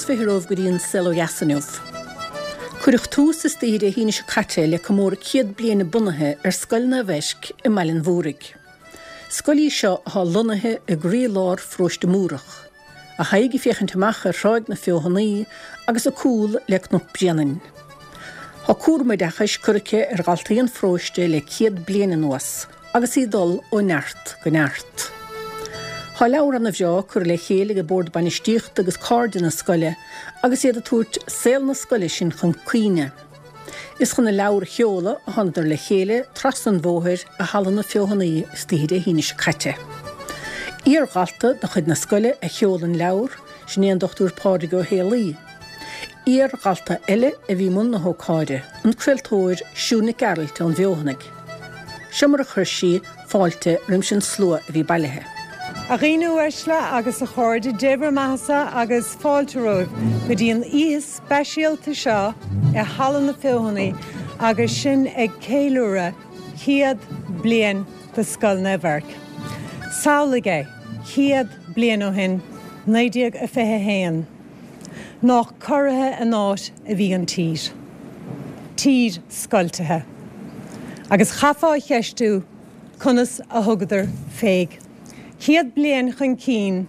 20 romhaibh go dtí an Saol Ó Dheas inniu. Cuireadh tús istoíche Dé hAoine seo caite le comóradh 100 bliain a bunaithe ar Scoil Naomh Eirc i mBaile an Mhúraigh. Scoil í seo atá lonnaithe i gcroí-lár pharóiste Múrach, a haghaidh ag féachaint amach ar Thráigh na Feothanaí agus a cúl le Cnoc Bréanainn. Tá cúram oideachais curtha aici ar dhaltaí an pharóiste le 100 bliain anuas agus í ag dul ó neart go neart. Tá leabhar ana bhreá curtha le chéile ag Bord Bainistíochta agus cairde na scoile agus iad ag tabhairt saol na scoile sin chun cuimhne. Is chun an leabhar a sheoladh a thánadar le chéile trasna an bhóthair i Halla na Feothanaí istoíche Dé hAoine seo caite. Iar-dhalta de chuid na scoile a sheol an leabhar, sin é an Dr Pádraig Ó Héalaí. Iar-dhalta eile a bhí i mbun na hócáide, an craoltóir Siún Nic Gearailt ón bhFeothanaigh. Seo mar a chuir sí fáilte roimis an slua a bhí bailithe. A dhaoine uaisle agus a chairde, Dé bhur mbeathasa agus fáilte romhaibh go dtí an oíche speisialta seo i Halla na Feothanaí agus sinn ag ceiliúradh 100 bliain de Scoil Naomh Eirc. Samhlaigh é, 100 bliain ó shin, 1921. Nách corraithe an áit a bhí an tír. Tír scoiltithe. Agus chaithfeá a cheistiú conas a thugadar féig. 100 bliain chun cinn,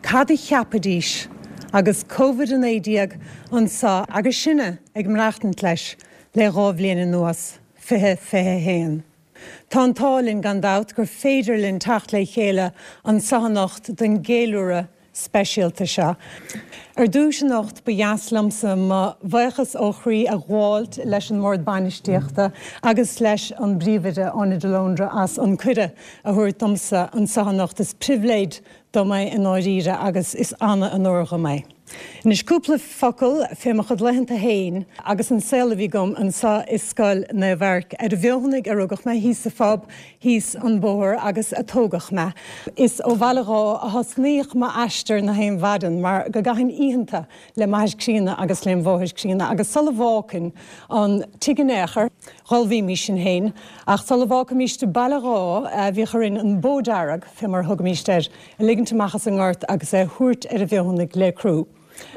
cad a cheapfaidís agus Covid-19 anso agus sinne ag maireachtaint leis le 2 bhliain anuas, 2021. Tá an t-ádh linn gan dabht gur féidir linn teacht le chéile anso anocht don gceiliúradh speisialta seo. Ar dtúis anocht ba dheas liomsa mo bhuíochas ó chroí a ghabháilt leis an mBord Bainistíochta agus leis an bPríomhoide Áine de Lóndra as an cuireadh a thabhairt domsa anso anocht. Is pribhléid dom é i ndáiríre agus is ana-onóir dhom é. Anois cúpla focal fé mo chuid laethanta fhéin agus an saol a bhí agam anso i Scoil Naomh Eirc. Ar an bhFeothanaigh a rugadh mé, thíos sa phub, thíos an bóthar agus a tógadh mé. Is ó Bhaile Dháith a thosnaíodh m'aistear na haon mhaidin mar go gcaithfinn oícheanta le m'athair críonna agus lem mháthair chríonna agus sula bhfágfainn an tigh in aon chor, dh'ullmhaímís sinn féin ach sula bhfágfaimíst Baile Dháith bhíodh orainn an bó dearg, fé mar a thugaimíst air, a ligint amach as an ngort agus é a thabhairt ar an bhFeothanaigh le crú.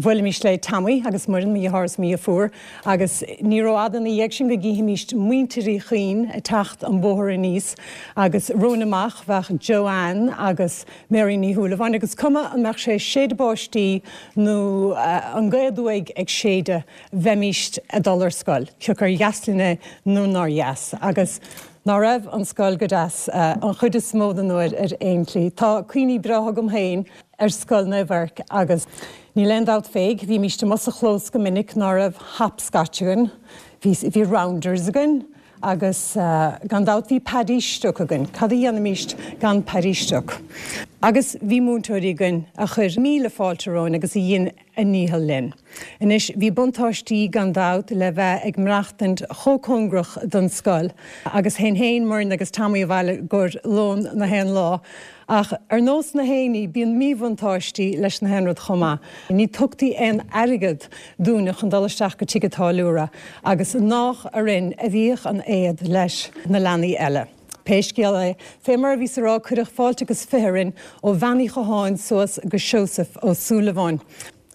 Bhuailimíst le Tommy agus Muireann, mo dheartháir is mo dheirfiúr, agus ní rófhada ina dhiaidh sin go gcífimíst muintir Uí Chuinn ag teacht an bóthar aníos agus romhainn amach bheadh Joanne agus Mary Ní Shúilleabháin agus cuma an mbeadh sé ag séideadh báistí nó an gaoth aduaidh ag séideadh bheimíst ag dul ar scoil, cioca ar dheas linn é nó nár dheas. Agus ná raibh an scoil go deas an chuid is mó den uair ar aon tslí. Tá cuimhní breátha agam féin ar Scoil Naomh Eirc agus níl aon dabht féig, bhímíst amuigh sa chlós go minic ná raibh hopscotch againn, bhí bhí rounders againn agus gan dabht bhí Paddy Stuic againn, cad a dhéanfaimíst gan Paddy Stuic? Agus bhí múinteoirí againn a chuir míle fáilte romhainn agus a dhein a ndícheall linn. Anois, bhí buntáistí gan dabht le bheith ag maireachtaint chomh cóngarach don scoil agus théinn féin, Muireann agus Tommy abhaile i gcomhair lón na haon lá. Ach ar nós na haon ní, bíonn míbhuntáistí leis na haon rud chomh maith. Ní tugtaí aon airgead dúinne chun dul isteach go tigh an táilliúra agus nách orainn a bhíodh an éad leis na leanaí eile. Pé scéal é, fé mar a bhíos a rá, cuireadh fáilte agus 20 orainn ó Bhean Uí Chatháin suas go Seosamh Ó Súilleabháin.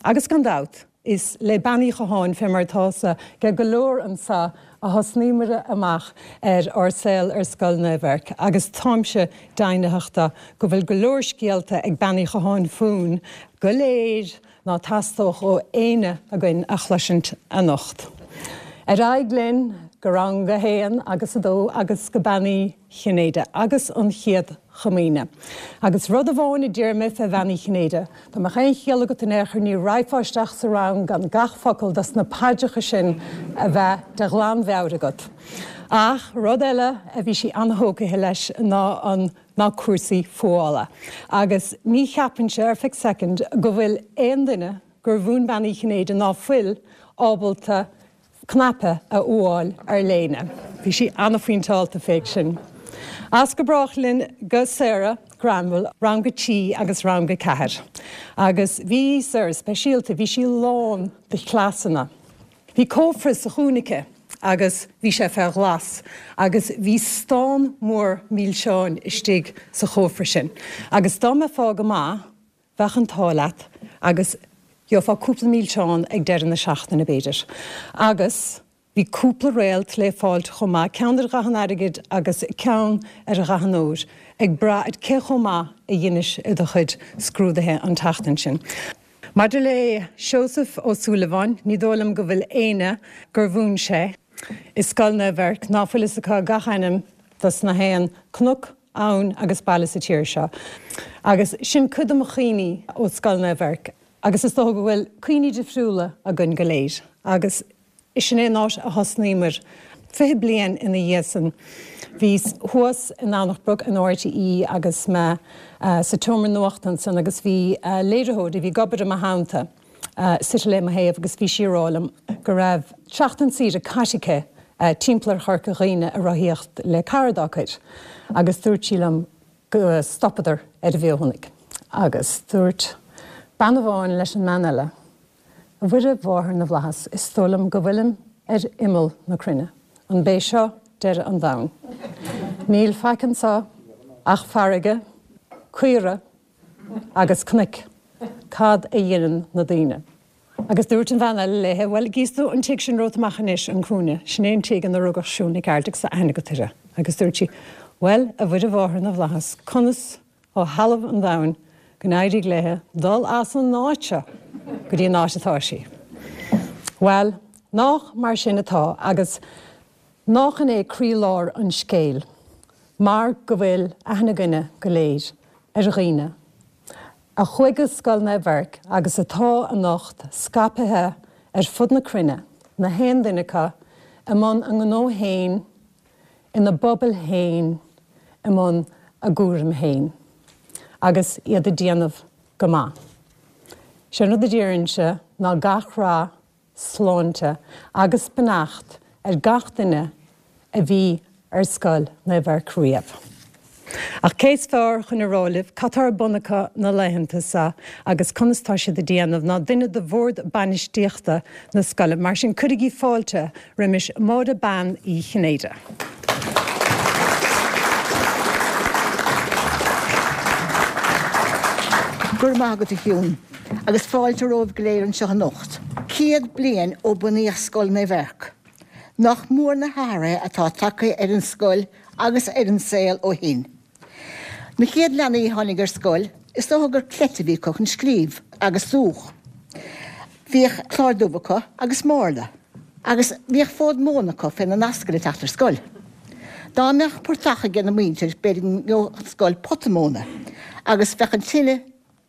Agus gan dabht, is le Bean Uí Chatháin, fé mar atá 's age go leor anso, a thosnaíomair amach ar ár saol ar Scoil Naomh Eirc. Agus táimse deimhnitheach de go bhfuil go leor scéalta ag Bean Uí Chatháin fúinn go léir, ná teastódh ó éinne againn a chloisint anocht. Ar aghaidh linn go rang a haon agus a dó agus go Bean Uí Chinnéide agus an Chéad Chomaoine. Agus rud amháin a déarfaidh mé fé Bhean Uí Chinnéide, dá mbeadh aon chiall agat in aon chor ní raghfá isteach sa rang gan gach focal dos na paidreacha sin a bheith de ghlanmheabhair agat. Ach rud eile a bhí sí an-thógtha leis ná an. ná cúrsaí fuála. Agus ní cheapfainnse ar feadh soicind go bhfuil aon duine gur mhúin Bean Uí Chinnéide ná fuil ábalta cnaipe a fhuáil ar léine. Bhí sí an-phointeálta féig sin. As go brách linn go Sarah Granville, rang a trí agus rang a ceathair. Agus bhí Sarah speisialta, bhí sí lán de chleasanna. Bhí cófra sa chúinne aici agus bhí sé fé ghlas agus bhí stán mór milseáin istigh sa chófra sin agus dá mbeifeá go maith bheadh an t-ádh leat agus. Gheofá cúpla milseán ag deireadh na seachtaine, b'fhéidir. Agus bhí cúpla réalt le fáilt chomh maith, ceann ar dhath an airgid agus ceann ar dhath an óir, ag brath ar cé chomh maith a dheinis i do chuid scrúduithe an tseachtain sin. Maidir le Seosamh Ó Súilleabháin, ní dóigh liom go bhfuil éinne gur mhúin sé i Scoil Naomh Eirc ná fuil fhios acu gach ainm dos na haon cnoc, abhainn agus baile sa tír seo. Agus sin cuid de mo chuimhní ó Scoil Naomh Eirc agus is dócha go bhfuil cuimhní difriúla againn go léir agus Sin é an áit a thosnaíomar. 20 bliain ina dhiaidh san, bhíos thuas i nDomhnach Broc in RTÉ agus mé sa tseomra nuachta ansan agus bhí léiritheoir a bhí ag obair i mo theannta suite le mo thaobh agus bhí sí ag rá liom go raibh seachtain saoire caite aici timpeall ar Chorca Dhuibhne ag rothaíocht le cara dá cuid agus dúirt sí liom go stopadar ar an bhFeothanaigh agus dúirt bean amháin leis an mbean eile A Mhuire Mháthair na bhFlaitheas, is dóigh liom go bhfuilim ar imeall na cruinne. An b'é seo deireadh an domhain? Níl faic anso ach farraige, caora agus cnoic. Cad a dheineann na daoine? Agus dúirt an bhean eile léithe, Bhuel, gíos tú an tigh sin romhat amach anois, an cúinne, sin é an tigh ina rugadh Siún Nic Gearailt agus tá aithne agat uirthi. Agus dúirt sí, Bhuel, a Mhuire Mháthair na bhFlaitheas, conas ó thalamh an domhain go n-éirigh léithe dul as an áit seo go dtí an áit atá sí. Bhuel, nách mar sin atá agus nách in é croílár an scéil mar go bhfuil aithne againne go léir ar dhaoine a chuaigh go Scoil Naomh Eirc agus atá anocht scaipthe ar fud na cruinne, na haon duine acu i mbun a ngnó fhéin, ina bpobail féin i mbun a gcúraim féin agus iad ag déanamh go maith. Sé an rud a déarfainnse ná gach rath, sláinte agus beannacht ar gach duine a bhí ar Scoil Naomh Eirc riamh. Ach cé is fearr chun a rá libh cad tá ar bun acu na laethanta seo agus conas tá siad ag déanamh ná duine de bhord bainistíochta na scoile. Mar sin cuirigí fáilte roimis Máire Bean Uí Chinnéide. Go raibh maith agat a Shiún, agus fáilte romhaibh go léir anseo anocht. 100 bliain ó bunaíodh Scoil Naomh Eirc. Nach mór na hathruithe atá tagtha ar an scoil agus ar an saol ó shin. Na chéad leanaí a tháinig ar scoil, is dócha gur cleite a bhí acu chun scríobh agus dúch. Bhíodh clár dubh acu agus márla. Agus bhíodh fód móna acu féna n-ascaill ag teacht ar scoil. Dá mbeadh portach ag na muintir b'fhéidir go ngeobhadh an scoil pota móna agus bheadh an tine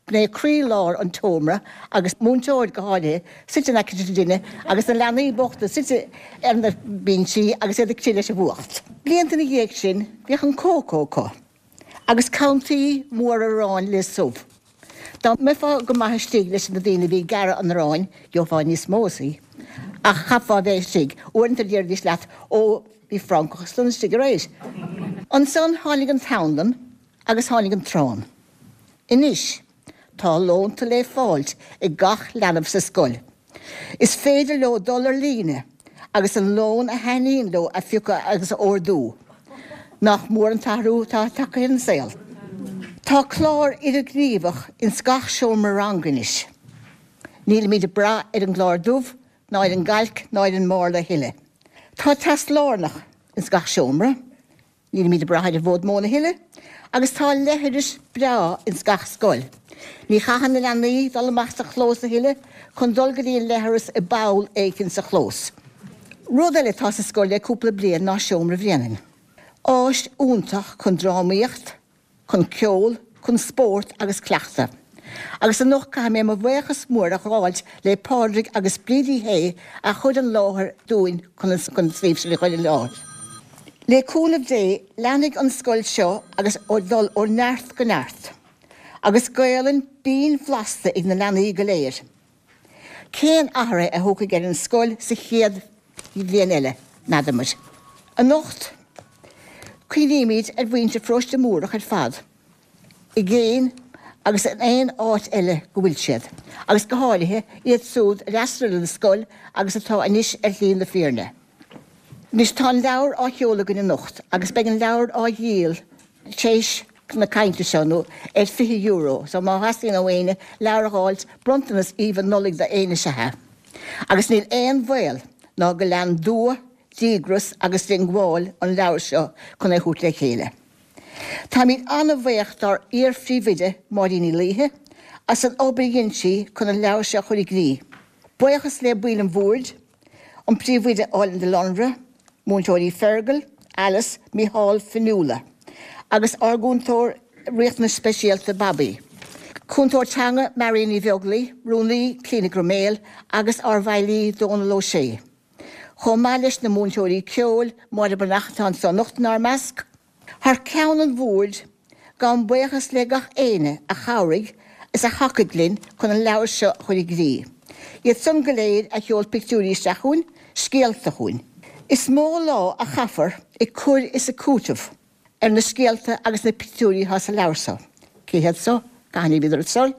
b'in é croí-lár an tseomra agus múinteoir, go háirithe, suite in aice na tine agus na leanaí bochta suite ar na binsí agus iad ag crith leis an bhfuacht. Blianta ina dhiaidh sin bhíodh an cócó acu agus cantaí móra aráin le subh. Dá mbeifeá go maith istigh leis na daoine a bhí ag gearradh an aráin gheofá níos mó as í. Ach chaithfeá a bheith istigh. Uaireanta déarfaidís leat Ó, bhí francach ansan istigh aréir. Ansan tháinig an t-anlann agus tháinig an t-arán. Anois, tá lónta le fáilt ag gach leanbh sa scoil. Is féidir leo dul ar líne agus an lón a thaitníonn leo a phiocadh agus a ordú. Nach mór an t-athrú atá tagtha ar an saol? Tá clár idirghníomhach ins gach seomra ranga anois. Nílimid ag brath ar an gclár dubh ná ar an gcailc ná ar an márla a thuilleadh. Tá teas lárnach ins gach seomra. Nílimid ag brath ar an bhfód móna a thuilleadh agus tá leithreas breá ins gach scoil. Ní chaitheann na leanaí dul amach sa chlós a thuilleadh chun dul go dtí an leithreas i bpoll éicint sa chlós. Rud eile atá sa scoil le cúpla bliain ná Seomra Bhréanainn. Áis iontach chun drámaíocht, chun ceol, chun spórt agus cleachtadh. Agus anocht caithfidh mé mo bhuíochas mór a ghabháilt le Pádraig agus Bríd Uí Shé a chuir an láthair dúinn chun an suíomh sin a chur i láthair. Le cúnamh Dé leanfaidh an scoil seo agus ag dul ó neart go neart. Agus Gaolainn binn bhlasta ag na leanaí go léir. Cén athruithe a thiocfaidh ar an scoil sa chéad bhliain eile, n'fheadar muid. Anocht, cuimhnímid ar mhuintir Pharóiste Múrach ar fad, i gcéin agus in aon áit eile go bhfuil siad, agus go háirithe iad súd a d'fhreastail ar an scoil agus atá anois ar shlí na fírinne. Anois tá an leabhar á sheoladh againn anocht agus beidh an leabhar á dhíol tar éis. na cainte seo nó ar €20 so má theastaíonn ó éinne leabhar a dh'fháilt, bronntanas aoibhinn Nollaig do éinne is ea é. Agus níl aon bhaol ná go lean dua, díogras agus diongbháil an leabhar seo chun é thabhairt le chéile. Táimid an-bhaoch dár iar-phríomhoide, Máirín Ní Laoithe, as an obair a dhein sí chun an leabhar seo a chur i gcrích. Buíochas le baill an bhoird, an Príomhoide Áilinn de Lonra, Múinteoirí Fergal, Alice, Mícheál, Fionnuala agus ár gcúntóir riachtanais speisialta Bobby. Cúntóir teanga Marion Ní Bheaglaoi, Rúnaí Clíona Grumél agus ár bhfeighlí Dónal Ó Sé. Chomh maith leis na múinteoirí ceoil, Máire Breathnach atá anseo anocht inár measc. Thar ceann an bhoird, gabhaim buíochas le gach éinne a chabhraigh is a thacaigh linn chun an leabhar seo a chur i gcrích. Iad san go léir a sheol pictiúirí isteach chugainn, scéalta chugainn. Is mó lá a chaithfear ag cur is ag cúiteamh ar na scéalta agus na pictiúirí atá sa leabhar seo. Cé hiad so? Cathain a bhíodar ar scoil?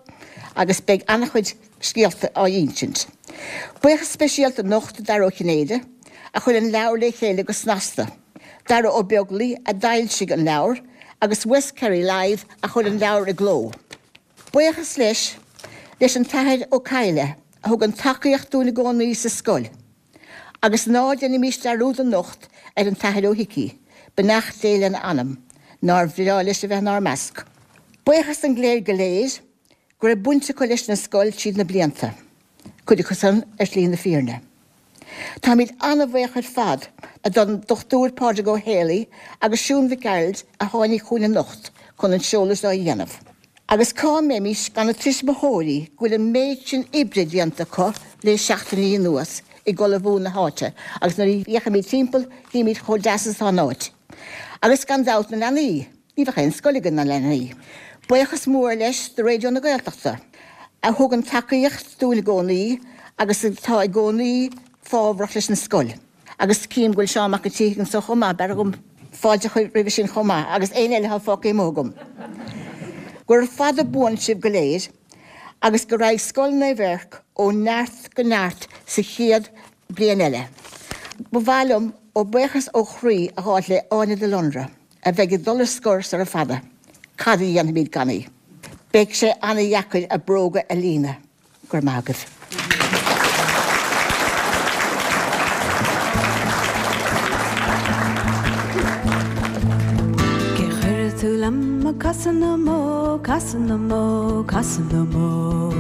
Agus beidh an-chuid scéalta á insint. Buíochas speisialta anocht do Dara Ó Cinnéide a chuir an leabhar le chéile go snasta. Dara Ó Beaglaoi a d'fhoilsigh an leabhar agus West Kerry Live a chuir an leabhar i gcló. Buíochas leis leis an tAthair Ó Cadhla a thugann tacaíocht dúinn i gcónaí sa scoil. Agus ná déanaimís dearúd anocht ar an tAthair Ó hIcí, beannacht Dé lena anam, nár bhreá leis a bheith inár measc. Buíochas don gcléir go léir go raibh baint acu leis an scoil tríd na blianta, cuid acu san ar shlí na fírinne. Táimid an-bhaoch ar fad don Dr Pádraig Ó Héalaí agus Siún Mhic Gearailt a tháinig chugainn anocht chun an seoladh seo a dhéanamh. Agus cá mbeimis gan na tuismitheoirí go bhfuil an méid sin oibre déanta acu le seachtainí anuas ag ullmhú na háite agus nuair a fhéachaimid timpeall chímid chomh deas is atá an áit. Agus gan dabht na leanaí. Ní bheadh aon scoil againn gan leanaí. Buíochas mór leis do Raidió na Gaeltachta a thugann tacaíocht dúinn i gcónaí agus atá i gcónaí fábhrach leis an scoil. Agus cím go bhfuil Seán Mac an tSíthigh anso chomh maith, b'fhearr dhom fáilte a chur roimhe sin chomh maith agus éinne eile atá fágtha amuigh agam. Gura fada buan sibh go léir agus go raghaidh Scoil Naomh Eirc ó neart go neart sa chéad bliain eile. Ba mhaith liom ó buíochas ó chroí a ghabháilt le Áine de Lonra. a bheidh ag dul ar scor sara fada, cad a dhéanfaimid gan í? Beidh sé ana-dheacair a bróga a líonadh. Go raibh maith agaibh. Cé chuirfidh tú liom ag casadh na mbó, casadh na mbó, casadh na mbó?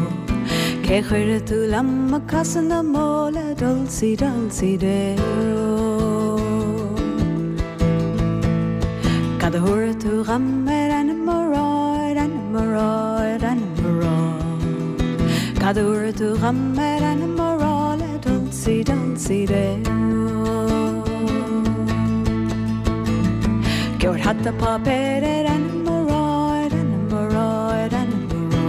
Cé chuirfidh tú liom ag casadh na mbó le Dulcie, Dulcie Dero? Cad a thabharfaidh tú dhom ar ainm mo rá, ar ainm mo rá, ar ainm mo rá? Cad a thabharfaidh tú dhom ar ainm mo rá le Dulcie, Dulcie Dero? Gheobhair hata páipéir ar ainm mo rá, ar ainm mo rá, ar ainm mo rá.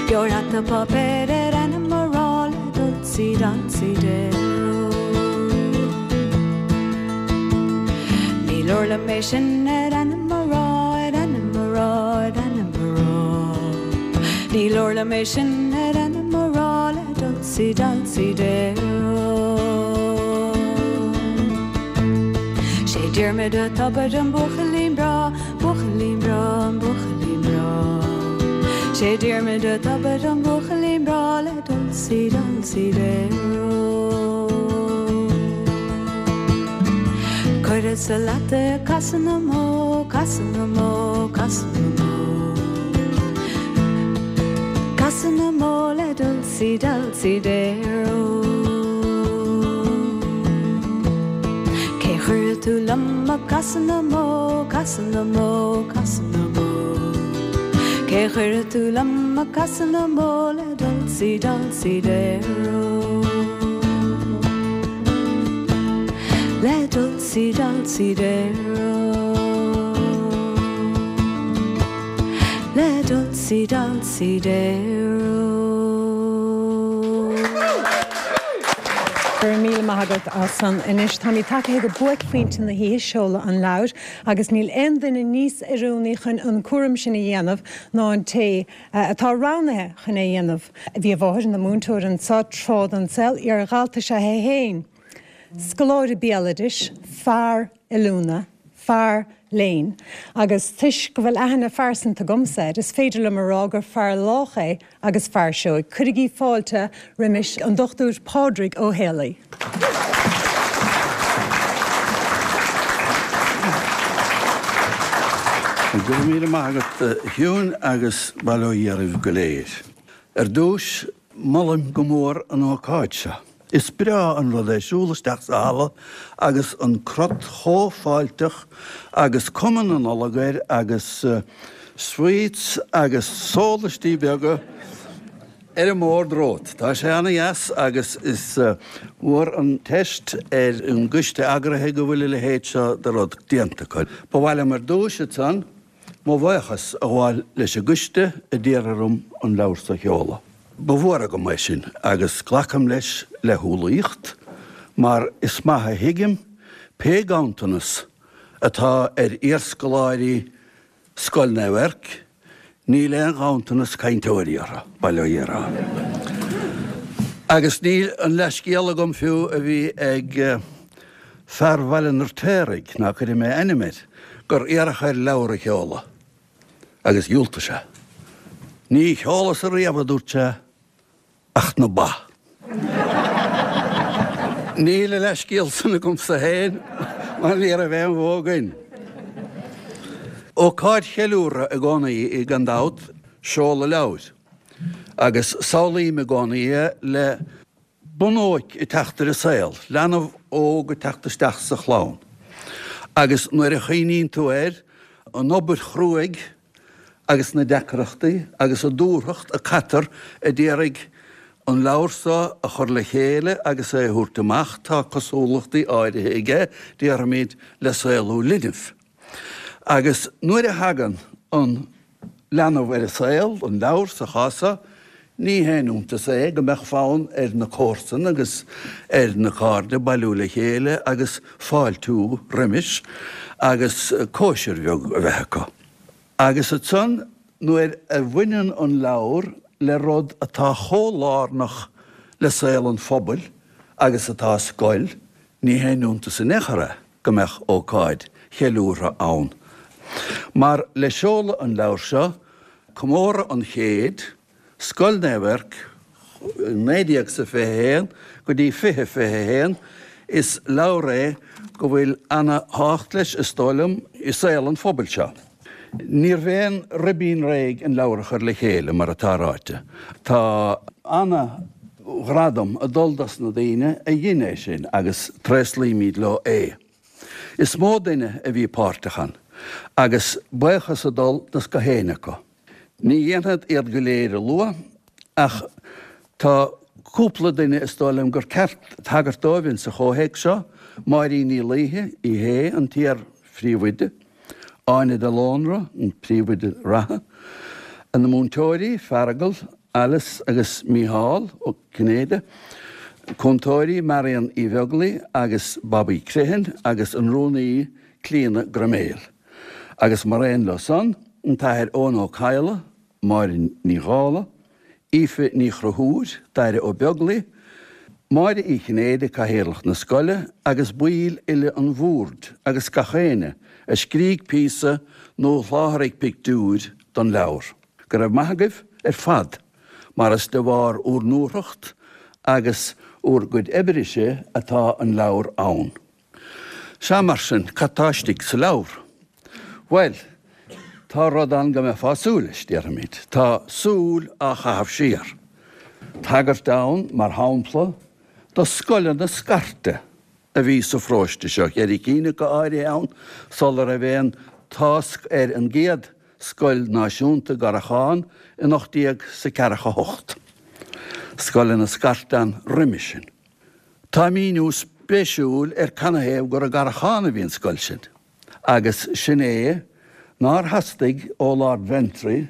Gheobhair hata páipéir ar ainm mo rá le Dulcie, Dulcie Dero. Ní leor liom é sin ar ainm mo rá, ar ainm mo rá, ar ainm mo rá. Ní leor liom é sin ar ainm mo rá le Dulcie, Dulcie Dero. Sé Diarmuid a' Tobair an buachaillín breá, buachaillín breá, an buachaillín breá. Sé Diarmuid a' Tobair an buachaillín breá le Dulcie, Dulcie Dero. Cuirfeadsa leat é ag casadh na mbó, casadh na mbó, casadh na mbó. Casadh na mbó le Dulcie, Dulcie Dero. Cé chuirfidh tú liom ag casadh na mbó, casadh na mbó, casadh na mbó? Cé chuirfidh tú liom ag casadh na mbó le Dulcie, Dulcie Dero? Le Dulcie, Dulcie Dero. Le Dulcie, Dulcie Dero. Go raibh míle maith agat as san. Anois táimid tagtha go buaicphointe na hoíche, seoladh an leabhair, agus níl aon duine níos oiriúnaí chun an cúram sin a dhéanamh ná an té atá roghnaithe chun é a dhéanamh. Bhí a mháthair ina múinteoir anseo tráth den saol, iar-dhalta is ea é féin, scoláire béaloidis, fear oiliúna, fear. Léinn agus toisc go bhfuil aithne phearsanta agamsa air, is féidir liom a rá gur fear lách é agus fear seoigh. Cuirigí fáilte roimis an Dr Pádraig Ó Héalaí. Go raibh míle maith agat a Shiún agus bail ó Dhia oraibh go léir. Ar dtús, molaim go mór an ócáid seo. Is breá an rud é siúl isteach sa halla agus an crot chomh fáilteach agus cuma na Nollag air agus sweets agus sólaistí beaga ar an mbord romhat. Tá sé ana-dheas agus is mór an teist ar an gcoiste eagraithe go bhfuil a leithéid seo de rud déanta acu. Ba mhaith liom ar dtús ansan Mo bhuíochas a ghabháil leis an gcoiste a d'iarr orm an leabhar so a sheoladh. Ba mhór agam é sin agus glacaim leis le humhlaíocht mar is maith a thuigim pé ganntanas atá ar iarscoláirí Scoil Naomh Eirc, níl aon ghanntanas cainteoirí orthu, bail ó Dhia orthu. Agus níl an leathscéal agam fiú a bhí ag fear Bhaile an Fheirtéaraigh, ná cuirfidh mé ainm air, gur iarradh air leabhar a sheoladh agus dhiúltaigh sé. Ní sheolfadsa riamh, a dúirt sé, ach na ba. Níl a leathscéal san agamsa féin mar ní raibh aon bhó againn. Ócáid cheiliúrtha i gcónaí í gan dabht, seoladh leabhair, agus samhlaím i gcónaí é le bunóic ag teacht ar an saol, leanbh óg ag teacht isteach sa chlann. Agus nuair a chuimhníonn tú air, an obair chruaidh agus na deacrachtaí agus an dúthracht a caitear a d'iarraidh an leabhar so a chur le chéile agus é a thabhairt amach, tá cosúlachtaí áirithe aige, déarfaimid, le saolú linbh. Agus nuair a thagann an leanbh ar an saol, an leabhar sa chás so, ní haon iontas é go mbeadh fonn ar na comharsana agus ar na cairde bailiú le chéile agus fáiltiú roimis agus cóisir bheag a bheith acu. Agus ansan nuair a bhaineann an leabhar le rud atá chomh lárnach le saol an phobail agus atá scoil, ní haon iontas in aon chor é. go mbeadh ócáid cheiliúrtha ann. Mar le seoladh an leabhair seo, comóradh an chéid, Scoil Naomh Eirc, 1921 go dtí 2021, is leabhar é go bhfuil ana thábhacht leis, is dóigh liom, i saol an phobail seo. Níorbh aon ribín réidh an leabhar a chur le chéile, mar atá ráite. Tá ana ghradam ag dul dos na daoine a dhein é sin agus tréaslaímid leo é. Is mó duine a bhí páirteach ann agus buíochas ag dul dos gach éinne acu. Ní dhéanfad iad go léir a lua ach tá cúpla duine is dóigh liom gur ceart tagairt dóibh insa chomhthéacs seo, Máirín Ní Laoithe, í hé an t-iar-phríomhoide, Áine de Lónra, an príomhoide reatha, na múinteoirí, Feargal, Alice agus Mícheál Ó Cinnéide, cúntóirí, Marion Uí Bheaglaoi agus Bobby Criomhthain agus an rúnaí, Clíona Groiméil. Agus mar aon leo san, an tAthair Eoin Ó Cadhla, Máire Ní Dhálaigh, Aoife Ní Chonchúir, Daire Ó Beaglaoi, Máire Uí Chinnéide, Cathaoirleach na scoile, agus baill uile an bhoird agus gach éinne a scrígh píosa nó a sholáthraigh pictiúir don leabhar. Go raibh maith agaibh ar fad mar is de bharr úr ndúthracht agus úr gcuid oibre-se atá an leabhar ann. Sea, mar sin, cad tá istigh sa leabhar? Bhuel, tá rud ann go mbeifeá ag súil leis, déarfaimid. Tá súil á chaitheamh siar. Tagairt ann, mar shampla, do scoileanna scairte a bhí sa pharóiste seo, cheithre cinn acu áirithe ann, sula raibh aon tásc ar an gcéad scoil náisiúnta i gCarrachán in 1848. Scoileanna scairte ann roimis sin. Tá míniú spéisiúil ar canathaobh gur i gCarrachán a bhí an scoil sin, agus sin é nár theastaigh ó Lord Ventry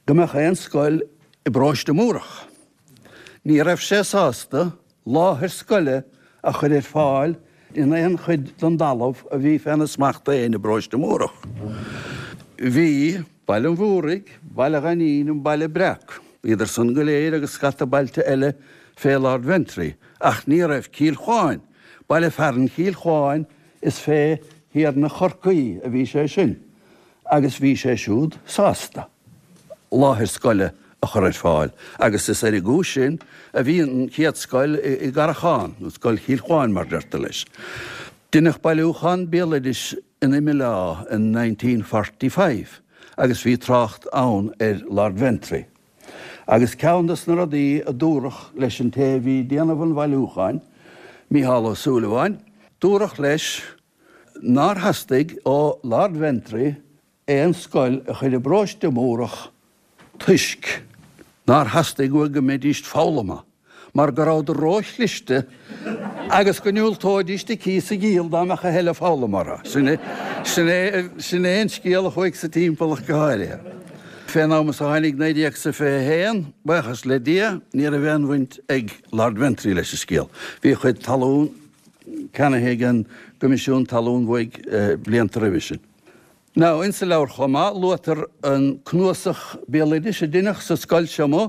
go mbeadh aon scoil i bparóiste Múrach. Ní raibh sé sásta láthair scoile a chur ar fáil in aon chuid den dtalamh a bhí féna smacht féin i bparóiste Múrach. Bhí Baile an Mhúraigh, Baile Ghainín, an Baile Breac, bhíodar san go léir agus scata bailte eile fé Lord Ventry, ach ní raibh Cill Chuáin, baile fearainn Chill Chuáin is fé. Thiarna Chorcaí a bhí sé sin agus bhí sé siúd sásta láthair scoile a chur ar fáil agus is ar an gcúis sin a bhí an chéad scoil i gCarrachán, nó Scoil Chill Chuáin mar deirtear leis. Deineadh bailiúchán béaloidis in Imileá in 1945 agus bhí trácht ann ar Lord Ventry. Agus ceann de na rudaí a dúradh leis an té a bhí ag déanamh an bhailiúcháin, Mícheál Ó Súilleabháin, dúradh leis nár theastaigh ó Lord Ventry aon scoil a chur i bparóiste Múrach toisc nár theastaigh uaidh go mbeidíst foghlamtha mar go rabhadar ró-chliste agus go ndiúltóidíst a cíos a dhíol dá mbeadh a thuilleadh foghlama orthu. Sin é, sin é, sin é an scéal a chuaigh sa timpeall ach go háirithe. Fén am is a tháinig 1921, buíochas le Dia, ní raibh aon bhaint ag Lord Ventry leis an scéal. Bhí a chuid talún ceannaithe ag an gCoimisiún Talún uaidh blianta roimhe sin. Now, insa leabhar chomh maith, luaitear an cnuasach béaloidis a deineadh sa scoil seo amuigh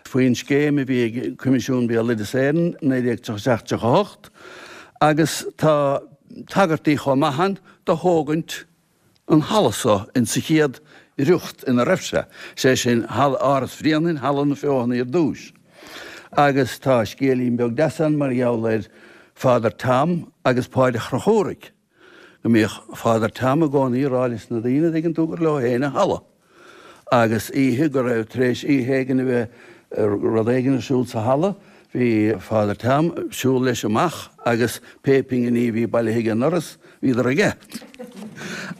faoin scéim a bhí ag Coimisiún Béaloideas Éireann, 1937, 38, agus tá tagairtí chomh maith ann do thógaint an halla so insa chéad riocht ina raibh sé, sé sin, halla Áras Bhréanainn, Halla na Feothanaí ar dtúis. Agus tá scéilín beag deas ann mar gheall ar Father Tom agus Páid a' Chonchúraigh. go mbíodh Father Tom i gcónaí ag rá leis na daoine, an dtuigeann tú, gur leo féin an halla. Agus oíche go raibh, tar éis oíche éigin a bheith rud éigin ar siúl sa halla, bhí Father Tom ag siúl leis amach agus pé pinginí a bhí bailithe ag an ndoras, bhíodar aige.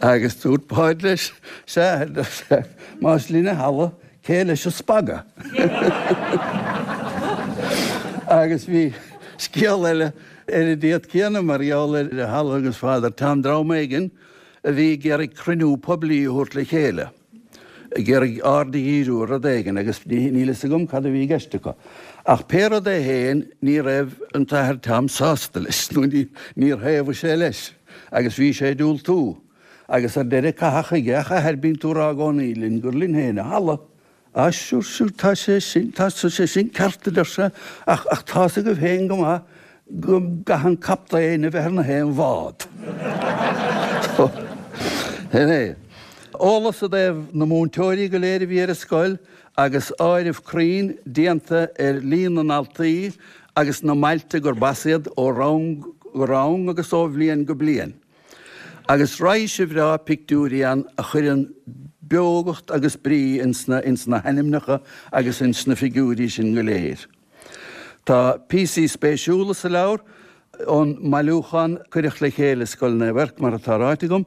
Agus dúirt Páid leis, sea, más linn an halla, cé leis an spaga? Agus bhí scéal eile Ar an dtéad céanna, mar gheall ar an halla agus Father Tom, dream éigin a bhí ag iarraidh cruinniú poiblí a thabhairt le chéile, ag iarraidh aird a dhíriú ar rud éigin agus níl fhios agam cad a bhí i gceist acu. Ach pé rud é féin, ní raibh an tAthair Tom sásta leis, nó níor thaobhaigh sé leis agus bhí sé ag diúltú. Agus ar deireadh caitheadh chuige, Ach a Athair, bíonn tú ag rá i gcónaí linn gur linn féin an halla. Á, sure, sure, tá sé sin, tá sé sin ceart, a deir sé, ach, ach tá's agaibh féin go maith go gcaithfidh an captaen a bheith ar na haon bhád. So, sin é. Eolas i dtaobh na múinteoirí go léir a bhí ar an scoil agus áireamh cruinn déanta ar líon na ndaltaí agus na mbailte gurb as iad ó rang go rang agus ó bhliain go bliain. Agus raidhse bhreá pictiúirí ann a chuireann beogacht agus brí ins na ins na hainmneacha agus ins na figiúirí sin go léir. Tá píosaí spéisiúla sa leabhar ón mbailiúchán a cuireadh le chéile i Scoil Naomh Eirc, mar atá ráite agam,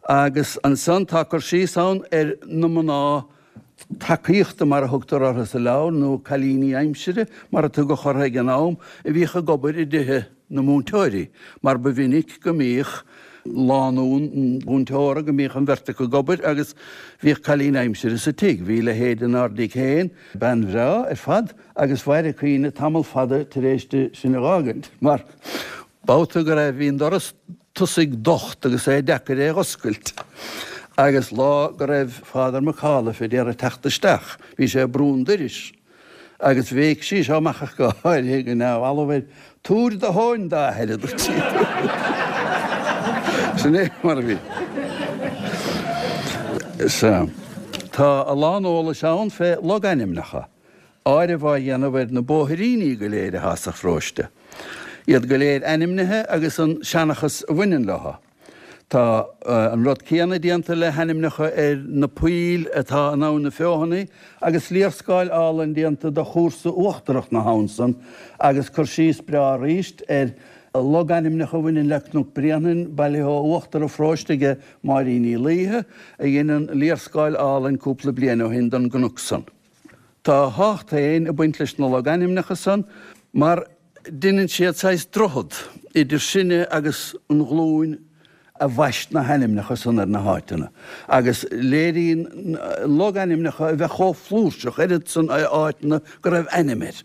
agus ansan tá cur síos ann ar na mná tacaíochta mar a thugtar orthu sa leabhar, nó cailíní aimsire mar a tugadh orthu ag an am, a bhíodh ag obair i dtithe na múinteoirí, mar ba mhinic go mbíodh lánúin mhúinteora, go mbíodh an bheirt acu ag obair agus bhíodh cailín aimsire sa tigh. Bhí leithéid inár dtigh féin, bean bhreá ar fad, agus mhair a cuimhne tamall fada tar éis di sinn a dh'fhágaint, mar babhta go raibh, bhí an doras tosaigh docht agus é deacair é dh'oscailt agus lá go raibh Father McAuliffe ag iarraidh teacht isteach bhí sé ag brú an doiris agus bhéic sí seo amach ach go háirithe go neamhbhalbh air, Tabhair do thóin d'athair, a dúirt sí. Sin é mar a bhí. Sea. Tá a lán eolais ann fé logainmneacha. áireamh á dhéanamh ar na bóithríní go léir atá sa pharóiste, iad go léir ainmnithe agus an seanchas a bhaineann leo. Tá an rud céanna déanta le hainmneacha ar na poill atá in Abhainn na Feothanaí agus léarscáil álainn déanta de chúrsa uachtarach na habhann san agus cur síos breá arís ar logainmneacha a bhaineann le Cnoc Bréanainn, bailithe ó uachtar an pharóiste aige Máirín Ní Laoithe, a dhein an léarscáil álainn cúpla bliain ó shin don gcnoc san. Tá a thábhacht féin ag baint leis na logainmneacha san mar deineann siad saghas droichead idir sinne agus an ghlúin a bhaist na hainmneacha san ar na háiteanna agus léiríonn logainmneacha a bheith chomh flúirseach, oiread san áiteanna go raibh ainm air.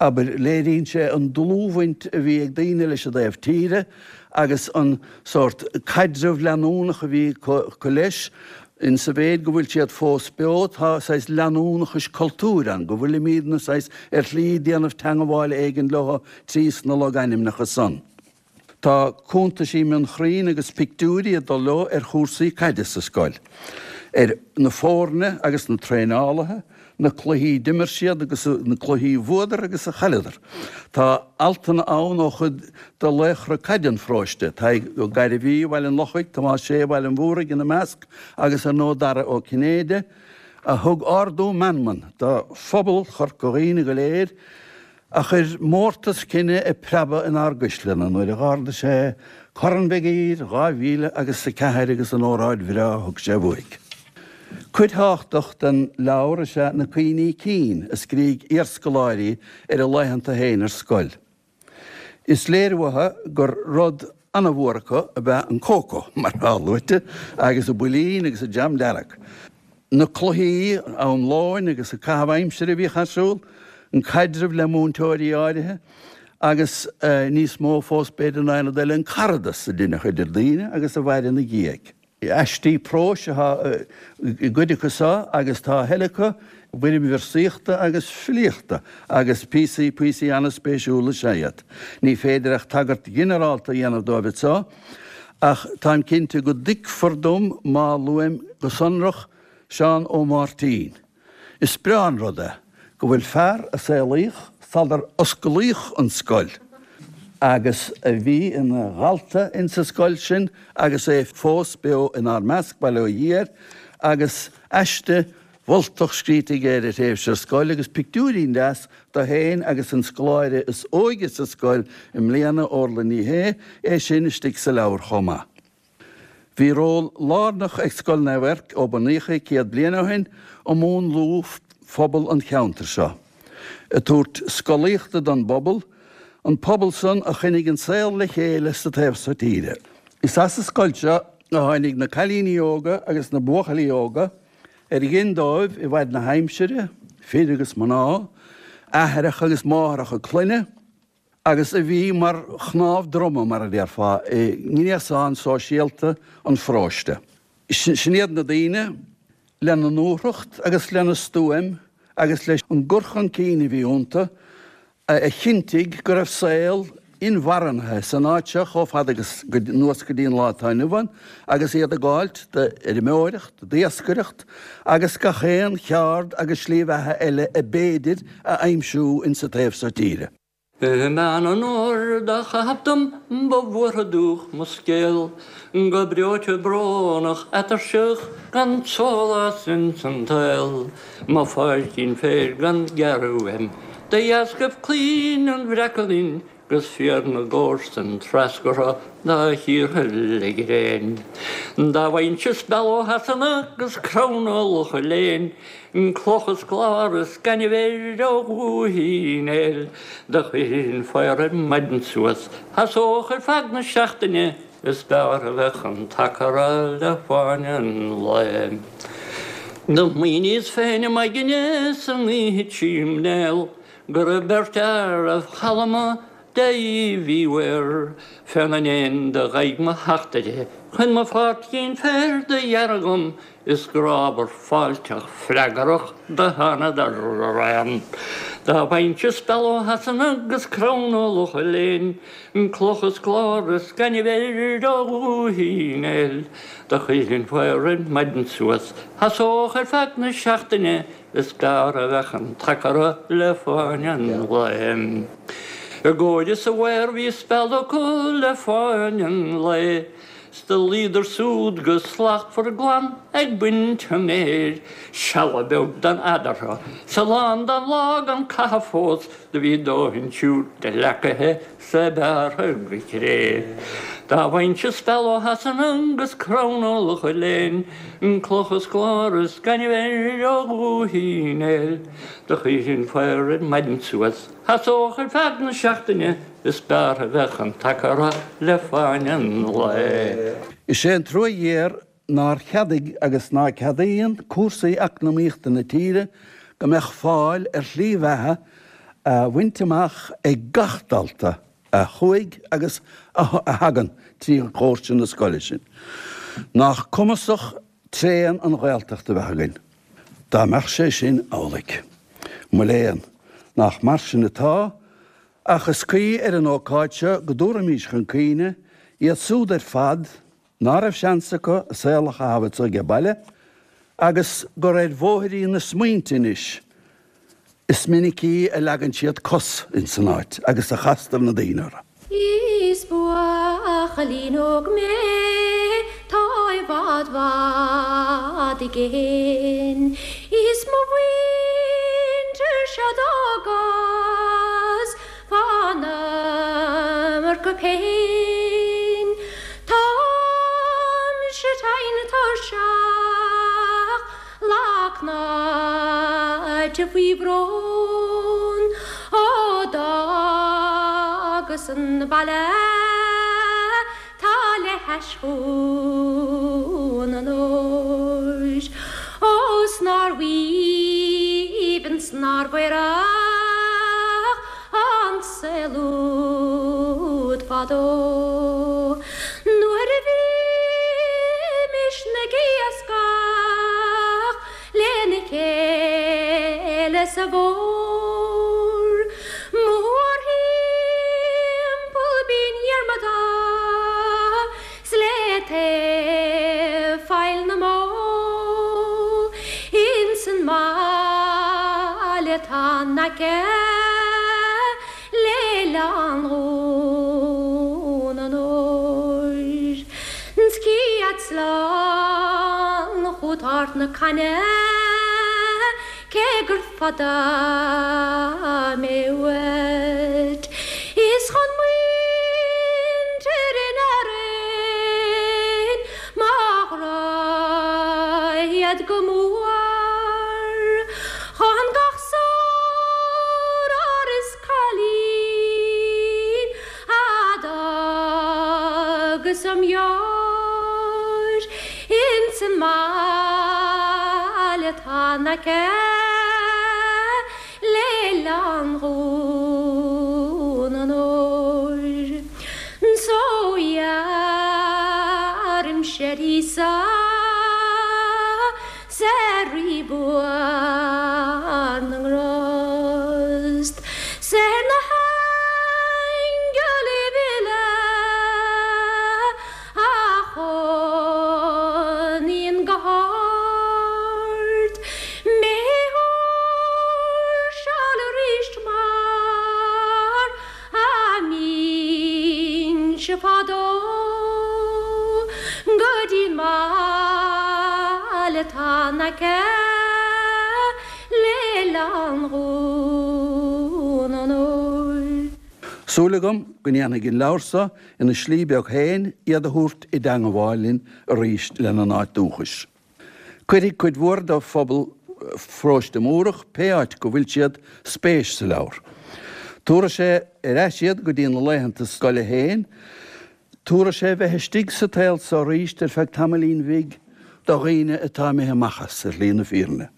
Abair, léiríonn sé an dlúthbhaint a bhí ag daoine leis an dtaobh tíre agus an sórt caidreamh leanúnach a bhí acu leis. In sa mhéid go bhfuil siad fós beo, tá saghas leanúnachais cultúir ann, go bhfuilimídne saghas ar shlí déanamh teangabháil éigin leo trí sna logainmneacha san. Tá cuntaisí mionchruinn agus pictiúirí ag dul leo ar chúrsaí caide sa scoil, ar na foirne agus na traenálaithe, na cluichí d'imir siad agus na cluichí a bhuadar agus a chailleadar. Tá altanna ann ó chuid de laochra caide an pharóiste, Tadhg Ó Gairbhí, Bhaile an Lochaigh, Tomás Sé, Bhaile an Mhúraigh ina measc agus ar ndóigh Dara Ó Cinnéide, a thug ardú meanman do phobal Chorca Dhuibhne go léir, a chuir mórtas cine ag preabadh inár gcuisleanna nuair a dh'ardaigh sé Corn Mhig Uidhir 2000 agus a 4 agus an óráid bhreá a thug sé uaidh. Cuid thábhachtach den leabhar is ea na cuimhní cinn a scrígh iarscoláirí ar a laethanta féin ar scoil. Is léir uathu gur rud ana-mhór acu ab ea an cócó, mar atá luaite, agus an builín agus an jam dearg. Na cluichí am lóin agus an caitheamh aimsire a bhíodh ar siúl, an caidreamh le múinteoirí áirithe agus níos mó fós b'fhéidir ná aon rud eile, an caradas a deineadh idir daoine agus a mhair ina dhiaidh. Aistí próis atá i gcuid acu seo agus tá a thuilleadh acu i bhfoirm véarsaíochta agus filíochta agus píosaí píosaí an-spéisiúla is ea iad. Ní féidir ach tagairt ghinearálta a dhéanamh dóibh anseo ach táim cinnte go dtuigfear dom má luaim go sonrach Seán Ó Máirtín. Is breá an rud é go bhfuil fear a saolaíodh sular osclaíodh an scoil agus a bhí ina dhalta insa scoil sin agus é fós beo inár measc, bail ó Dhia air, agus aiste mholtach scríte aige ar a thréimhse ar scoil agus pictiúirín deas de féin agus an scoláire is óige sa scoil i mbliana, Orla Ní Shé, é sin istigh sa leabhar chomh maith. Bhí ról lárnach ag Scoil Naomh Eirc ó bunaíodh í 100 bliain ó shin i múnlú phobal an cheantair seo, ag tabhairt scolaíochta don bpobal, an pobal san a choinnigh an saol le chéile sa taobh so tíre. Is as an scoil seo a tháinig na cailíní óga agus na buachaillí óga ar ghin dóibh i bhfaid na haimsire, fir agus mná, aithreacha agus máithreacha clainne, agus a bhí mar chnámh droma, mar a déarfá, i ngréasán sóisialta an pharóiste. Sin iad na daoine, lena ndúthracht agus lena stuaim agus leis an gcur chun cinn a bhí iontu, a chinntigh go raibh saol inmharthanaithe san áit seo chomh fada agus anuas go dtí an lá atá inniu ann, agus iad ag gabháilt d'fheirmeoireacht, d'iascaireacht agus gach aon cheard agus slí bheatha eile a b'fhéidir a aimsiú insa taobh so tíre. I mbean an óir do chaitheamh dom ba bhuartha dúch mo scéal, go breoite brónach atuirseach gan sólás ins an tsaol, mo pháircín féir gan gearradh uaim de dheascaibh claínn an bhreaca linn 'gus fíor na gcomharsan treascartha dá chíortha le gréin. Dá bhfaighinnse speal ó Shasana 'gus crann ó Locha Léin, cloch is clár is gaineamh air ó Dhúiche Uí Néill, do chuirfinn faobhar ar maidin suas, sheasódh ar feadh na seachtaine, is b'fhearr a bheadh an t-acra le fáinne an lae. Do smaoiníos féin i m'aigne san oíche trím néal, Go raibh beirt fhear a chalma de Uíbh Uí Mhaoir féna ndéin do dh'aghaidh mo theachtaire chun mo pháircín féir do ghearradh dhom is grámhar fáilteach freagrach do thánadar araon. Dá bhfaighinnse speal ó Shasana 'gus crann ó Locha Léin, cloch is clár is gaineamh air ó Dhúiche Uí Néill, do chuirfinn faobhar ar maidin suas, sheasódh ar feadh na seachtaine Is b'fhearr a bheadh an t-acra le fáinne an lae. I gcóir is a mhaor bhí speal acu le fáinne an lae. 'S do luíodar súd go slachtmhar glan ag baint an fhéir. Seala beag d'fhan eadarthu 's a lán den lá gan caitheamh fós do bhí dóthain siúd de leacaithe 's é bearrtha go cré. Dá bhfaighinnse speal ó Shasana 'gus crann ó Locha Léin, cloch is clár is gaineamh air ó Dhúiche Uí Néill, do chuirfinn faobhar ar maidin suas, sheasódh ar feadh na seachtaine, is b'fhearr a bheadh an t-acra le fáinne an lae. Is é an trua ghéar nár cheadaigh agus ná ceadaíonn cúrsaí eacnamaíochta na tíre go mbeadh fáil ar shlí bheatha a bhaint amach ag gach dalta a chuaigh agus a thagann trí dhoirse na scoile sin. Nach cumasach tréan an Ghaeltacht a bheith againn dá mbeadh sé sin amhlaidh. Mo léan, nach mar sin atá. Ach is cuí ar an ócáid seo go dtabharfaimís chun cuimhne iad súd ar fad ná raibh seans acu a saol a chaitheamh anso age baile agus gur ar bhóithrín na smaointe anois is minicí a leagann siad cos ins an áit agus a chastar na daoine orthu. Is buachaillín óg mé 'tá i bhfad bhfad i gcéin Is mo mhuintir seo d'fhágas fán iomarca péin Táimse tinn tuirseach lag cnáite faoi bhrón Ó d'fhágas an baile 'tá le hais Dhún an Óir Ó 's nár aoibhinn 's nár aerach an saol úd fadó Nuair a bhímis ag iascach lena chéile sa bhfómhar. Mórthimpeall Binn Dhiarmada 's le taobh Faill na mBó ins an mbaile 'tá in aice le hOileán Dhún an Óir. 'S cífead slán chút Ard na Caithne cé gur fada mé uait. Is chun muintir in Árainn mo ghrá iad go mór. Chun gach sár is cailín a d'fhágas im dheoir ins an mbaile atá in aice le hOileán Dhún an Óir. So iarraimse ar Íosa 's ar Rí buan na nGrást, 's ar na haingilibh uile a chónaíonn go hard, mé a thuirseáil aríst mar a mbínnse fadó go dtí'n mbaile atá in aice le hOileán Dhún an Óir. Súil agam go ndéanfaidh an leabhar so ina slí beag féin iad a thabhairt i dteangabháil linn arís lena n-áit dúchais. Cuirfidh cuid mhór de phobal Pharóiste Múrach, pé áit go bhfuil siad, spéis sa leabhar. Tabharfaidh sé ar ais iad go dtí na laethanta scoile féin. Tabharfaidh sé bheith istigh sa tsaol so arís ar feadh tamaillín bhig do dhaoine atá imithe amach as, ar shlí na fírinne.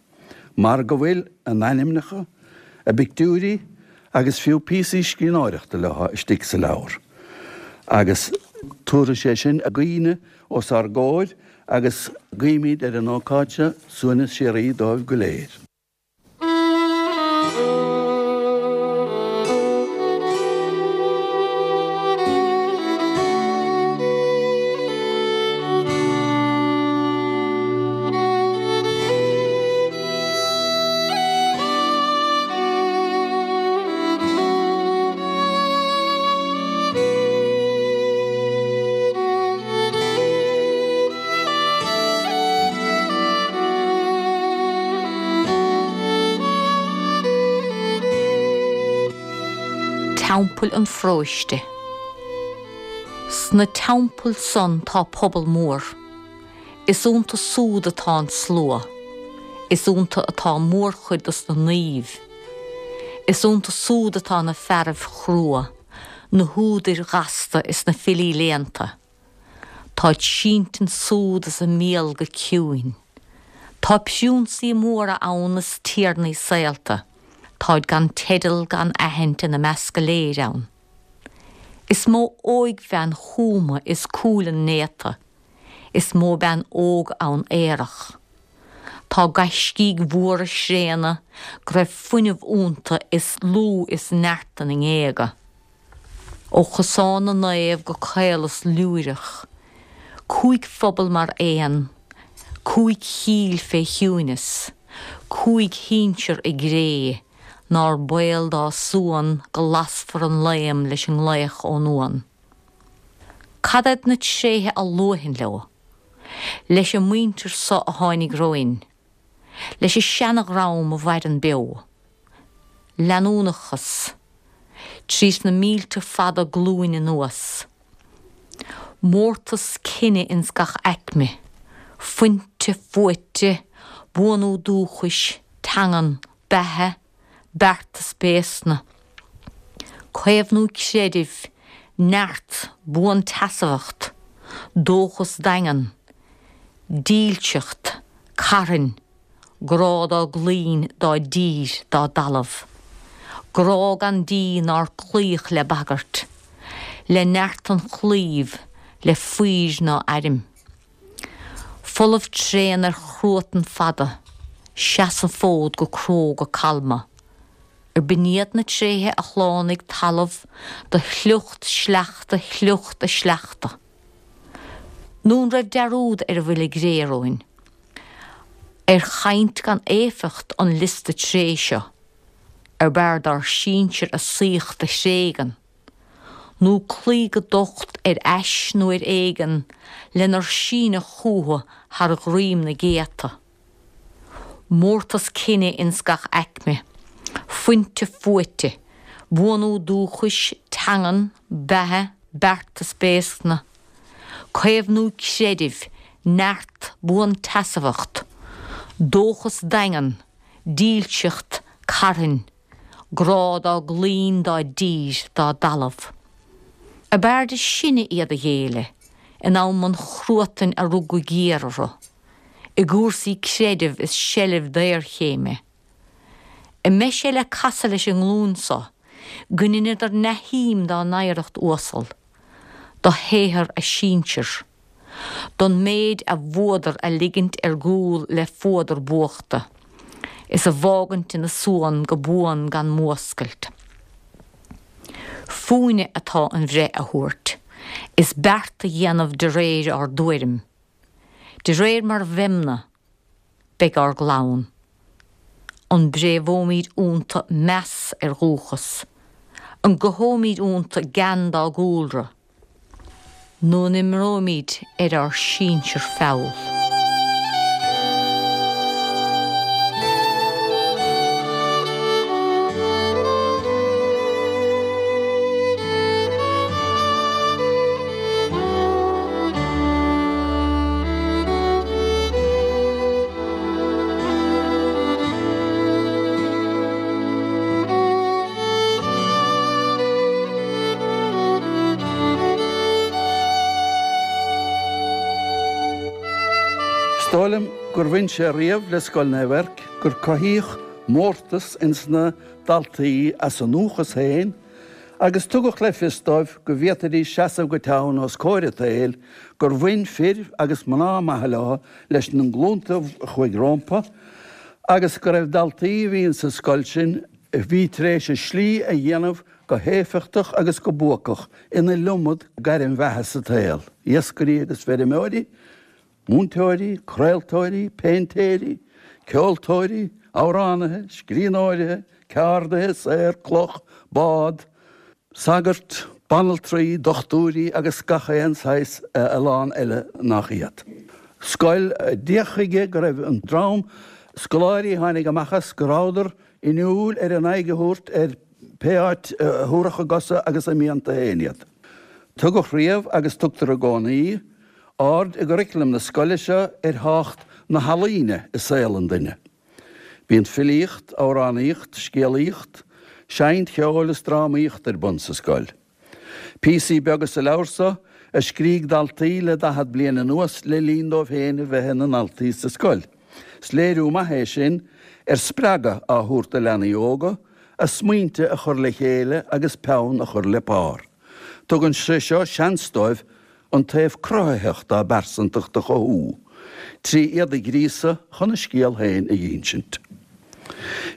Mar go bhfuil a n-ainmneacha, a bpictiúirí agus fiú píosaí scríbhneoireachta leo istigh sa leabhar. Agus tabharfaidh sé sin a gcuimhne os ár gcomhair agus guímid ar an ócáid seo suaimhneas síoraí dóibh go léir. Teampaill an Pharóiste. Sna teampaill san tá pobal mór. Is iontu súd atá an slua. Is iontu atá mórchuid dos na naoimh. Is iontu súd atá na fearaibh chrua. na húdair ghasta is na filí léannta. Táid sínte ansúd is a mbéal go ciúin. Tá priúnsaí móra ann is tiarnaí saolta. Táid gan teideal gan aithint ina measc go léir ann. Is mó óigbhean chúma is cúileann néata. Is mó bean óg ann aerach. Tá gaiscígh mhóra thréana go raibh fuinneamh iontu is lúth is neart ina ngéaga. Ó Chosán na Naomh go Caolas Lúireach, 5 phobal mar aon, 5 chill fé chiúineas, 5 shinsear i gcré, nár baol dá suan go lasfar an laom leis an nglaoch ón uan. Cad iad na tréithe a luafainn leo? Leis an muintir so a tháinig romhainn? Leis an seana-dhream a mhaireann beo? Leanúnachas. Tríd na mílte fada glúin anuas. Mórtas cine ins gach aicme. Fuinte, fuaite, buanú dúchais, teangan, beatha, beartas béascna. Caomhnú creidimh, neart, buanseasmhacht, dóchas daingean, dílseacht, carthainn, grá dá gclaínn, dá dtír, dá dtalamh. Grá gan díth nár cloíodh le bagairt, le neart an chlaímh, le faoir ná airm. Folamh tréan ar chruatan fada, seas an fód go cróga calma. Ar b'in iad na tréithe a shlánaigh talamh do shliocht sleachta shliocht a sleachta? Nó an raibh dearúd ar a bhfuil i gcré romhainn? Ar chaint gan éifeacht an liosta tréith seo, ar b'fhearr dár sinsir a saíocht a thréigean, nó cloí go docht ar ais nó ar éigean lenar síneadh chucu thar dhroim na gcéadta? Mórtas cine ins gach aicme, fuinte fuaite, buanú dúchais, teangan, beatha, beartas béascna, caomhnú creidimh, neart, buanseasmhacht, dóchas daingean, dílseacht, carthainn, grá dá gclaínn, dá dtír, dá dtalamh. Ab fhearrde sinne iad a ghéilleadh in am an chruatain a rug go géar orthu, i gcúrsaí creidimh is seilbh daorchéime. An mbeidh sé le casadh leis an nglúin so go ndeineadar neamhshuim dá n-oidhreacht uasal, do shaothar a sinsear, don méid a bhuadar a ligint ar gcúl le fuadar buachta, is a bhfágaint ina suan go buan gan múscailt. Fúinne atá an bhreith a thabhairt, is beart a dhéanamh de réir ár dtuairim. De réir mar bheimne, beidh ár gclann. An bpréamhóimid iontu meas ar dhúchas? An gcothóimid iontu gean dá gcúlra? Nó an imreoimid ar ár sinsir feall? Is dóigh liom gur bhain sé riamh le Scoil Naomh Eirc gur cothaíodh mórtas ins na daltaí as a ndúchas féin agus tugadh le fios dóibh go bhféadfaidís seasamh go teann os comhair an tsaoil gur bhain fir agus mná maithe leo leis na glúnta a chuaigh rómpa agus go raibh daltaí a bhí insa scoil sin a bhí tar éis a slí a dhéanamh go héifeachtach agus go buacach in iliomad gairm bheatha sa tsaol, iascairí agus feirmeoirí, múinteoirí, craoltóirí, péintéirí, ceoltóirí, amhránaithe, scríbhneoirithe, ceardaithe, saor cloch, bád, sagairt, banaltraí, dochtúirí agus gach aon saghas a lán eile nach iad. Scoil a d'fhéach chuige go raibh an dream scoláirí a tháinig amach as go rabhadar inniúil ar a n-aghaidh a thabhairt ar pé áit a thabharfadh a gcosa agus a mianta féin iad. Tugadh riamh agus tugtar i gcónaí aird i gcuraclam na scoile seo ar thábhacht na healaíne i saol an duine. Bíonn filíocht, amhránaíocht, scéalaíocht, seinnt cheoil is drámaíocht ar bun sa scoil. Píosaí beaga sa leabhar seo a scrígh daltaí le 40 bliain anuas le linn dóibh féin a bheith ina ndaltaí sa scoil. Is léiriú maith é sin ar spreagadh á thabhairt do leanaí óga a smaointe a chur le chéile agus peann a chur le pár. Tugann sé seo seans dóibh an taobh cruthaitheach dá bpearsantacht a chothú. trí iad a ghríosadh chun a scéal féin a dh'insint.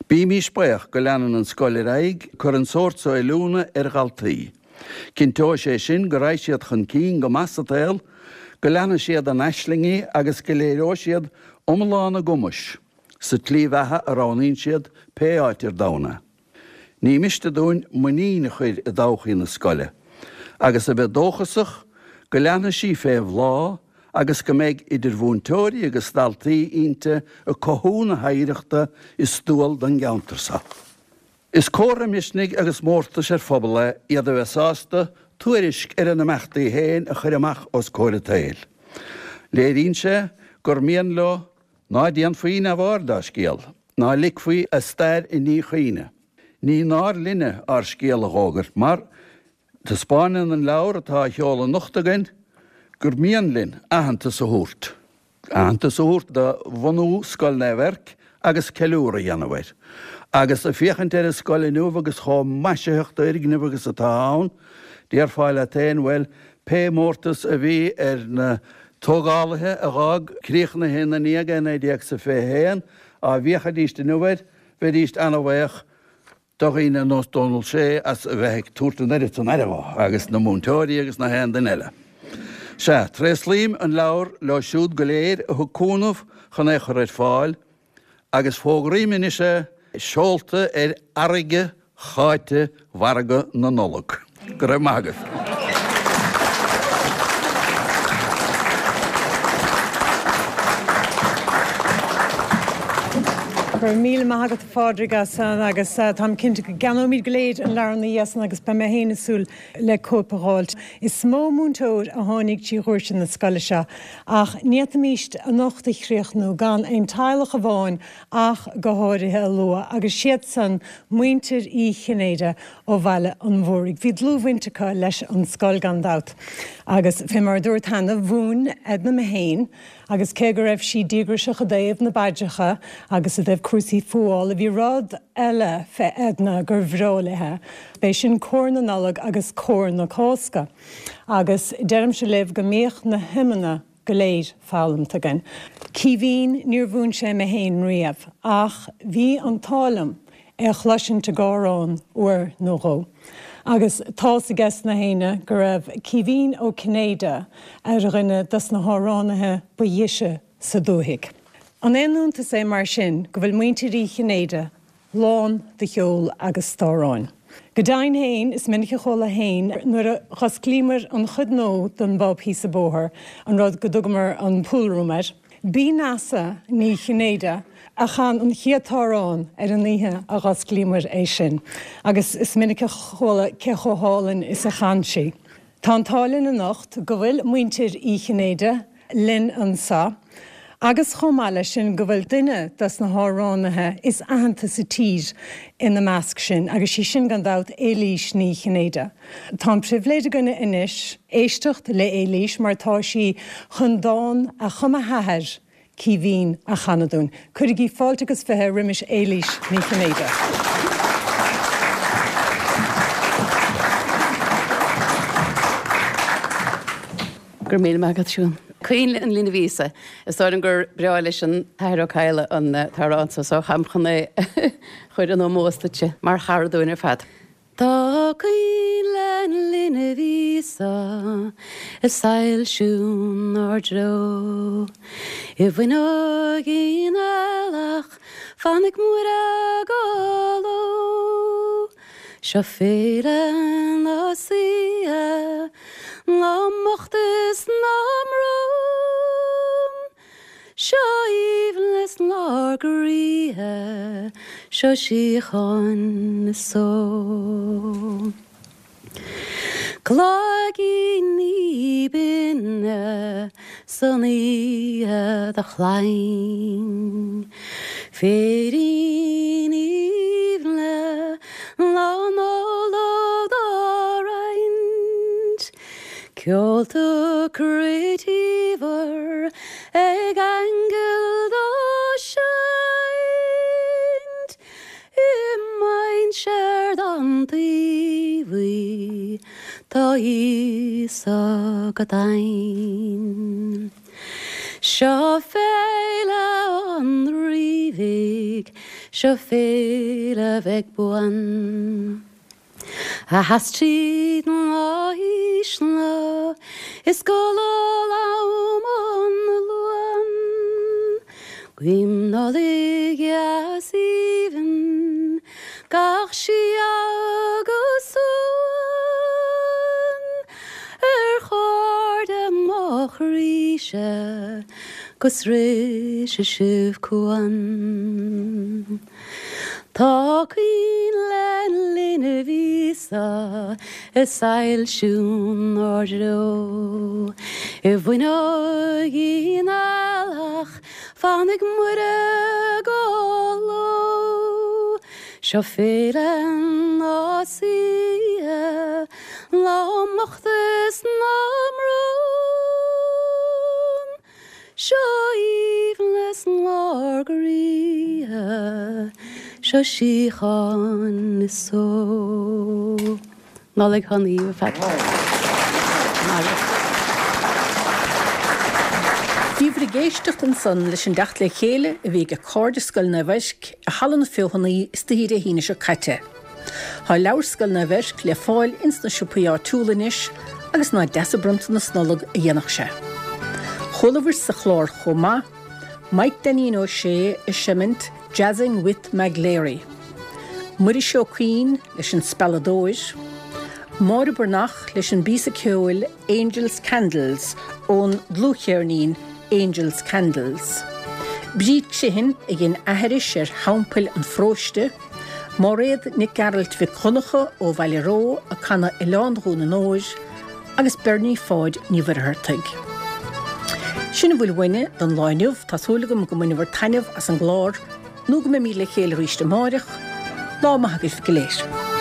Bímís baoch go leanann an scoil ar aghaidh ag cur an sórt so oiliúna ar dhaltaí. Cinnteoidh sé sin go raghaidh siad chun cinn go maith sa tsaol, go leanfaidh siad a n-aislingí agus go léireoidh siad iomlán a gcumais sa tslí bheatha a roghnaíonn siad pé áit ar domhan é. Ní miste dúinn muinín a chur i dtodhchaí na scoile agus a bheith dóchasach go leanfaidh sí fé bhláth agus go mbeidh idir mhúinteoirí agus dhaltaí inti ag cothú na hoidhreachta is dual don gceantar so. Is comhartha misnigh agus mórtais ar phobal é iad a bheith sásta tuairisc ar a n-imeachtaí féin a chur amach os comhair an tsaoil. Léiríonn sé gur mian leo ná déanfaí neamhaird dá scéal, ná ligfí a stair i ndíchuimhne. Ní náir linne ár scéal a dh'fhógairt mar taispeáineann an leabhar atá á sheoladh anocht againn gur mian linn aitheantas a thabhairt. aitheantas a thabhairt do bhunú Scoil Naomh Eirc agus ceiliúradh a dhéanamh air. Agus ag féachaint ar an scoil inniu agus chomh maisitheach d'fhoirgneamh agus atá ann, déarfá leat féin, bhuel, pé mórtas a bhí ar na tógálaithe a dh'fhág críochnaithe ina ndiaidh é i 1921, á bhféachfaidíst inniu air, bheidíst ana-bhaoch do dhaoine ar nós Dónal Sé as a bheith ag tabhairt an oiread san aire dhó, agus na múinteoirí agus na haon duine eile. Sea, tréaslaím an leabhar leo siúd go léir a thug cúnamh chun é a chur ar fáil, agus fógraím anois é seolta ar fharraige cháite mhargadh na Nollag. Go raibh maith agaibh. Go raibh míle maith agat a Phádraig as san agus táim cinnte go gceannóimid go léir an leabhar ina dhiaidh san agus beidh mé féin ag súil le cóip a dh'fháilt. Is mó múinteoir a tháinig trí dhoirse na scoile seo ach ní fhéadfaimíst anocht a chríochnú gan aon teaghlach amháin ach go háirithe a lua agus siad san muintir Uí Chinnéide ó Bhaile an Mhúraigh. Bhí dlúthbhaint acu leis an scoil gan dabht agus fé mar a dúrt cheana, mhúin Edna mé féin agus cé go raibh sí díograiseach i dtaobh na bpaidreacha agus i dtaobh cúrsaí fuála, bhí rud eile fé Edna gur bhreá léithe, b'é sin cór na Nollag agus cór na Cásca. Agus deirimse libh go mbíodh na hiomanna go léir foghlamta againn. Caoimhín, Níor mhúin sé mé fhéin riamh, ach bhí an t-ádh liom é a chloisint ag amhrán uair nó dhó. Agus tá's ages na héinne go raibh Caoimhín Ó Cinnéide ar dhuine dos na hamhránaithe ba dheise sa dúthaigh. An aon iontas é mar sin go bhfuil muintir Uí Chinnéide lán de cheol agus d'amhráin. Go deimhin féin, is minic a chuala féin nuair a dh'osclaíomair an chuid nua den bpub thíos an bóthar, an rud go dtugamair an pool room air, b'í Neasa Ní Chinnéide a chan an chéad t-amhrán ar an oíche a dh'osclaíomair é sin, agus is minic a chuala cé chomh hálainn is a chan sí. Tá an t-ádh linn anocht go bhfuil muintir Uí Chinnéide linn anseo agus chomh maith leis sin go bhfuil duine dos na hamhránaithe is aitheanta sa tír ina measc sin agus sí sin gan dabht Éilís Ní Chinnéide. Tá an pribhléid againne anois éisteacht le Éilís mar tá sí chun dán a chum a hathair Caoimhín a chanadh dúinn. Cuirigí fáilte agus 20 roimis Éilís Ní Chinnéide. Go raibh míle maith agat, Siún. Coinnle an Linbh Íosa. Is dóigh liom gur breá leis an tAthair Ó Cadhla an t-amhrán so, so táim chun é a chur in ómós duitse mar chara dúinn ar fad. Tá coinnle an Linbh Íosa ag soilsiú 'nár dtreo. I bhfuinneoigín ailleach fanfaidh Muire go ló. Seo féile na saoithe na mbocht is na mbrón. Seo aoibhneas 'nár gcroíthe, seo síocháin is só. Cloigíní binne san oíche do chlainn, Féiríní aoibhne Lá Nollag dá roinnt. Ceolta croídíomhair ag aingil dá seinnt i mainséar don taobhaí tá Íosa go daingean. Seo féile an Rí bhig, seo féile bheag buan. A sheas tríd na haoiseanna is go luath am an Luain. Guím Nollaig dheas aoibhinn gach síoga agus suan ar chairde mo chroíse go sroise sibh cuan. Tá coinnle linbh Íosa ag soilsiú 'nár dtreo. I bhfuinneoigín ailleach fanfaidh Muire go ló. Seo féile na saoithe, na mbocht is na mbrón. Seo aoibhneas 'nár gcroíthe, seo síocháin is só. Nollaig shona dhaoibh ar fad. Bhíobhair ag éisteacht ansan leis an dteacht le chéile a bhí ag cairde Scoil Naomh Eirc i Halla na Feothanaí istoíche Dé hAoine seo caite. Tá leabhar Scoil Naomh Eirc le fáil ins na siopaí áitiúla anois agus nach deas an bronntanas Nollag a dhéanfadh sé. Chualabhair sa chlár chomh maith, Mike Dainín Ó Sé ag seimint Jazzing with Maglary, Muiris Ó Cuinn leis an Spealadóir, Máire Breathnach leis an bpíosa ceoil Angels Candles ón dlúthcheirnín Angels Candles, Bríd Criomhthain a dhein aithris ar Theampaill an Pharóiste, Máiréad Nic Gearailt Mhic Dhonncha ó Bhaile Reo ag canadh Oileán Dhún an Óir agus Bernie Pháid Ní Mhuircheartaigh. Sin a bhfuil uainne don lá inniu, tá súil agam go mbaineabhair taitneamh as an gclár nó go mbeimíd le chéile arís amáireach. Lá maith agaibh go léir.